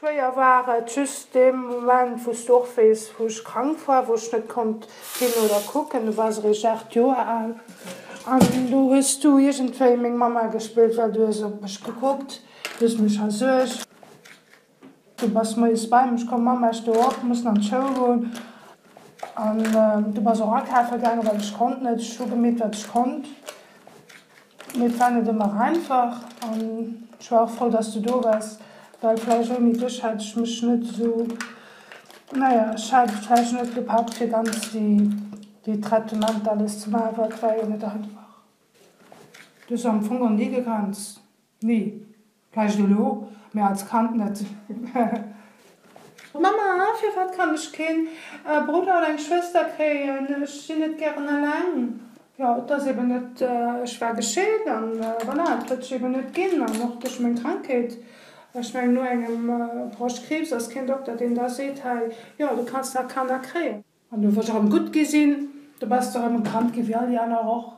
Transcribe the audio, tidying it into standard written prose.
Schwéier war et just dee Moment, wou s du och weess, wou ech krank war, wou ech net konnt ginn oder kucken. Du waars eréischt 8 Joer al an do hues du iergendwéi meng Mamma gespillt, well du hues op mech gekuckt, du hues mech versuergt. Du bass moies bei mech komm, Mamma, ech stoe op, mussen an d'Schoul goen. An du bass och akafe gaangen, well ech konnt net. Ech hu gemeet, wat ech konnt. Mee et war net ëmmer einfach an ech war och frou, dass du do waars, well vläicht ouni dech hätt ech mech net esou, naja, ech hätt et vläicht net gepackt, fir ganz déi, déi Traitementer alles ze maachen, well et war jo net einfach. Du hues am Fong och ni gegrenzt, ni. Vläicht elo, mee als Kand net. Mamma, firwat kann ech keen Brudder oder eng Schwëster kréien? Ech sinn net gären eleng. Jo, et ass eben net, ech war gescheet an voilà, et huet sech eben net ginn an och duerch meng Krankheet. Ech mengen, no engem Broschtkriibs ass keen Dokter, deen da seet, hei, jo, du kanns nach Kanner kréien. An du wou ech erëm gutt gi sinn, du bass de erëm e Kand gi wéi all déi aner och.